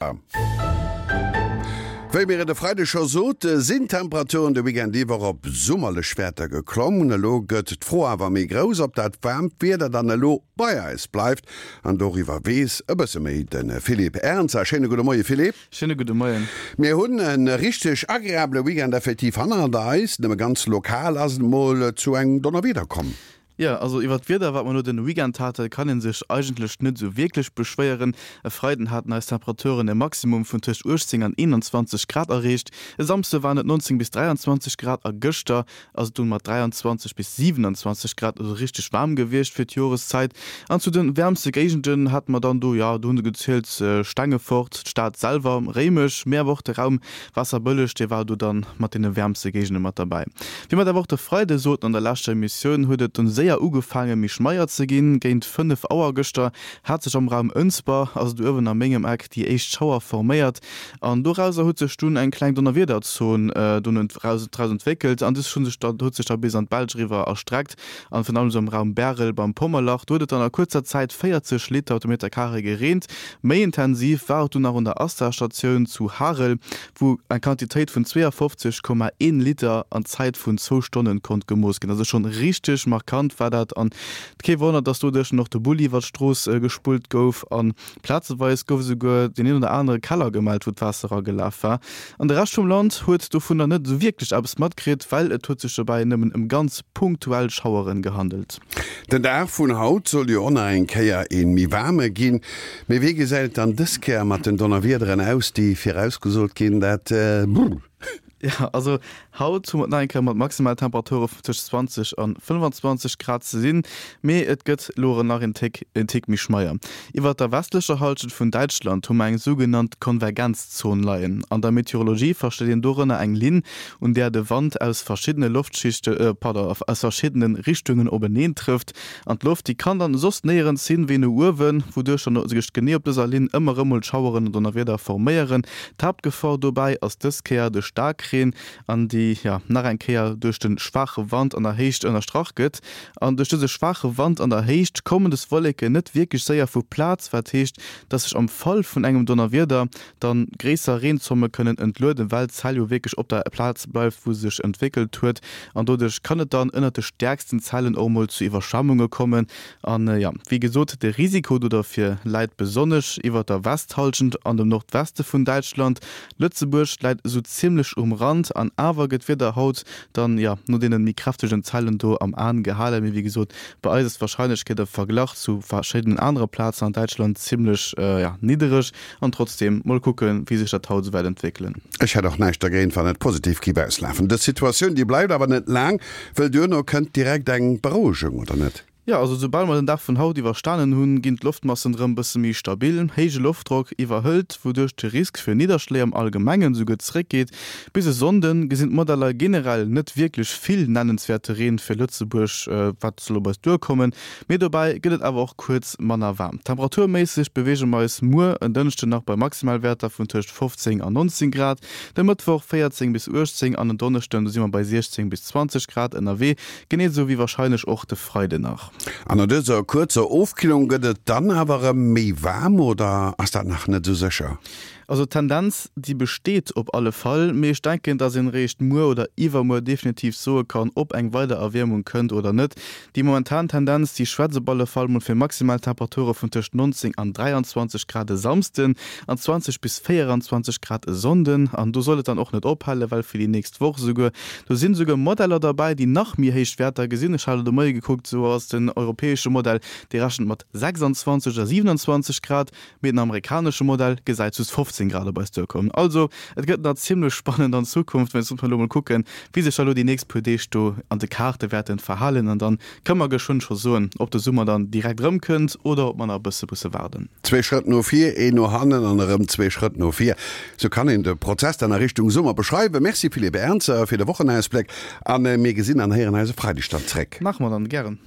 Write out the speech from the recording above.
Wéi mir et e Freideg scho sote, sinn d'Temperaturen de Weekend iwwer op summerlech Wäerter geklomm. Elo gëtt d'Fro awer méi grouss, ob dat waarmt Wieder dann elo bei eis bleift. An doriwwer weess e bësse méi de Philippe Ernzer. Schéine gudde Moie Philippe. Schéine gudde Moien. Mir hunn e richteg agreabele Weekend effektiv hannert eis. Nëmme ganz lokal ass et mol zu engem Donnerwieder komm. Jo, also iwwert d'Wieder, wat mer elo den Weekend haten, kann een sech eigentlech net esou wierklech beschwéieren. E Freiden haten eis Temperaturen e Maximum vun tëscht 18 an 21 Grad erreecht, e Samsde waren et 19 bis 23 Grad a gëschter ass et dunn mat 23 bis 27 Grad also richteg waarm gewiescht fir d'Joreszäit. An zu den wäermste Géigenden hate mer dann do, jo, do hunn se gezielt, Stengefort, d'Stad selwer, Réimech, mee awer och de Raum Waasserbëlleg, dee war do dann mat deene wäermste Géigende mat derbäi. Wéi mer et awer och de Freide soten an der leschter Emissioun, huet et dunn séier ugefaange méi schmeier ze ginn. Géint 5 Auer gëschter hat sech am Raum Ënsber, also do uewen a mengem Eck, déi éischt Schauer forméiert an dorauser huet sech dunn eng kleng Donnerwiederzon dunn draus entwéckelt an dës huet sech da bis an d'Belsch eriwwer erstreckt an virun allem esou am Raum Bärel beim Pommerlach. Do huet et dann a kuerzer Zäit 40 Liter op de Meterkaree gereent. Méi intensiv war et dunn nach un der Asta-Statioun zu Harel, wou eng Quantitéit vun 52,1 Liter an Zäit vun zwou Stonnen konnt gemooss ginn. Also schonn richteg markant war dat an kee Wonner, dass doduerch och de Bulli iwwer d'Strooss gespullt gouf an Plazeweis gouf esouguer deen een oder anere Keller gemellt, wou d'Waasser eragelaf war. An de Rescht vum Land huet dovunner net esou wierklech eppes matkritt, well et huet sech dobäi nëmmen ëm ganz punktuell Schaueren gehandelt. Den Dag vun haut soll jo och nach eng Kéier ee méi waarme ginn. Mee wéi gesäit et dann dës Kéier mat den Donnerwiederen aus, déi virausgesot ginn? Dat. Jo, also haut hu mer et nach eng Kéier mat Maximaltemperature vun tëscht 20 an 25 Grad ze sinn, mee et gëtt elo erëm nach een Téck en Tick méi schmeier. Iwwert der westlecher Hallschent vun Däitschland hu mer eng sougenannt Konvergenzzon leien. An der Meteorologie versteet een dorënner eng Linn, un där de Wand aus verschiddene Loftschichte, pardon, aus verschiddene Richtungen openeen trëfft. An d'Loft, déi kann dann soss néierens hin wéi no uewen, wouduerch dann sech genee op dëser Linn ëmmer erëm mol Schaueren an Donnerwieder forméieren. D'Haaptgefor dobäi ass dës Kéier de Staarkreen, an déi jo nach eng Kéier duerch de schwaache Wand an der Héicht ënnerstrach gëtt. An duerch dëse schwaache Wand an der Héicht kommen des Wolleken net wierklech séier vu Plaz, wat heescht, dass sech am Fall vun engem Donnerwieder dann gréisser Reenzomme kënnen entlueden, well d'Zell jo wierklech op der Plaz bleift, wou se sech entwéckelt huet. An doduerch kann et dann ënnert de stäerksten Zellen och mol zu Iwwerschwemmunge kommen. An jo, wéi gesot, de Risiko do derfir läit besonnesch iwwert der Westhallschent an dem Nordweste vun Däitschland. Lëtzebuerg läit esou zimmlech um Rand an awer gëtt d'Wieder haut dann, jo, no deene méi kräftegen Zellen do am Aen gehalen. Mee wéi gesot, bei eis ass d'Warscheinlechkeet am Verglach zu verschiddenen anere Plazen an Däitschland zimmlech, jo, niddereg. An trotzdem, mol kucken, wéi sech dat haut esou wäert entwéckelen. Ech hätt och näischt dergéint, wann et positiv giff auslafen. Dës Situatioun, déi bleift awer net laang, wëll duerno kënnt direkt eng Berouegung, oder net? Jo, also soubal mer den Dag vun haut iwwerstanen hunn, ginn d'Loftmassen erëm bësse méi stabil. Héije Loftdrock iwwerhëlt, wouduerch de Risk fir Nidderschléi am Allgemengen esouguer zeréckgeet. Bis e Sonnde gesinn d'Modeller generell net wierklech vill nennenswäerte Reen fir Lëtzebuerg, wat soll op eis duerkommen. Mee dobäi gëtt et awer och kuerz manner waarm. Temperaturméisseg beweege mer eis muer en Dënschden nach bei Maximalwäerter vun tëscht 15 an 19 Grad, de Mëttwoch 14 bis 18 an en Donneschden, do si mer bei 16 bis 20 Grad ënnerwee, genee esou wéi warscheinlech och de Freiden nach. An no dëser kuerzer Ofkillung gëtt et dann awer erëm méi waarm, oder ass dat nach net esou sécher? Also d'Tendenz, déi besteet op alle Fall, mee ech denken, dass een eréischt muer oder iwwermuer definitiv soe kann, ob eng weider Erwiermung kënnt oder net. Déi momentan Tendenz, déi schwätzt op alle Fall mol fir maximal Temperature vun tëscht 19 an 23 Grad e Samsden an 20 bis 24 Grad e Sonnden. An do soll et dann och net ophalen, well fir déi nächst Woch esouguer, do sinn esouguer Modeller derbäi, déi nach méi héich Wäerter gesinn. Ech hat elo de Moie gekuckt, esou ass den europäesche Modell, dee rechent mat 26 oder 27 Grad. Mee den amerikanesche Modell gesäit just 15 Grad op eis duerkommen. Also, et gëtt nach zimmlech spannend an Zukunft, mä jetzt muss mer elo mol kucken, wéi sech da elo déi nächst puer Deeg do an de Kaarte wäerten verhalen an dann kënne mer geschwënn scho soen, ob de Summer dann direkt erëmkënnt oder ob mer nach e bësse musse waarden. Zwee Schrëtt no vir, een no hannen an erëm zwee Schrëtt no vir. Sou kann een de Prozess dann a Richtung Summer beschreiwen. Merci Philippe Ernzer fir de Wochenausbléck a mir gesinn an héieren eis e Freideg dann zréck. Maache mer dann, gären.